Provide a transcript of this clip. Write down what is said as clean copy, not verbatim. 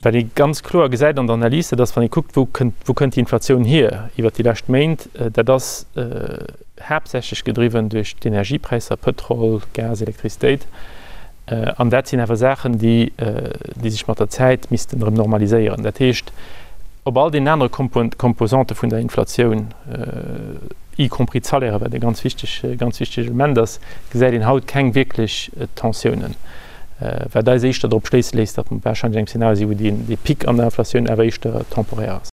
Wat ee ganz kloer gesäit an der Analys, dat ass, wann ee kuckt, wou kënnt, wou kënnt déi Inflatioun hier iwwert déi lescht Méint, dat ass haaptsächlech gedriwwen duerch d'Energiepräisser, Pëtrol, Gas, Elektrizitéit. An dat sinn awer Saachen, déi, déi sech mat der Zäit missten erëm normaliséieren. Dat heescht, op all deenen anere Composante vun der Inflatioun, y compris d'Salairen, wat e ganz wichteg, ganz wichteg Element ass, gesäit een haut keng wierklech Tensiounen. Wat eis éischter drop schléisse léisst, datt mer warscheinlech an engem Zeenario sinn, wou dee Pic an der Inflatioun awer éischter temporär ass.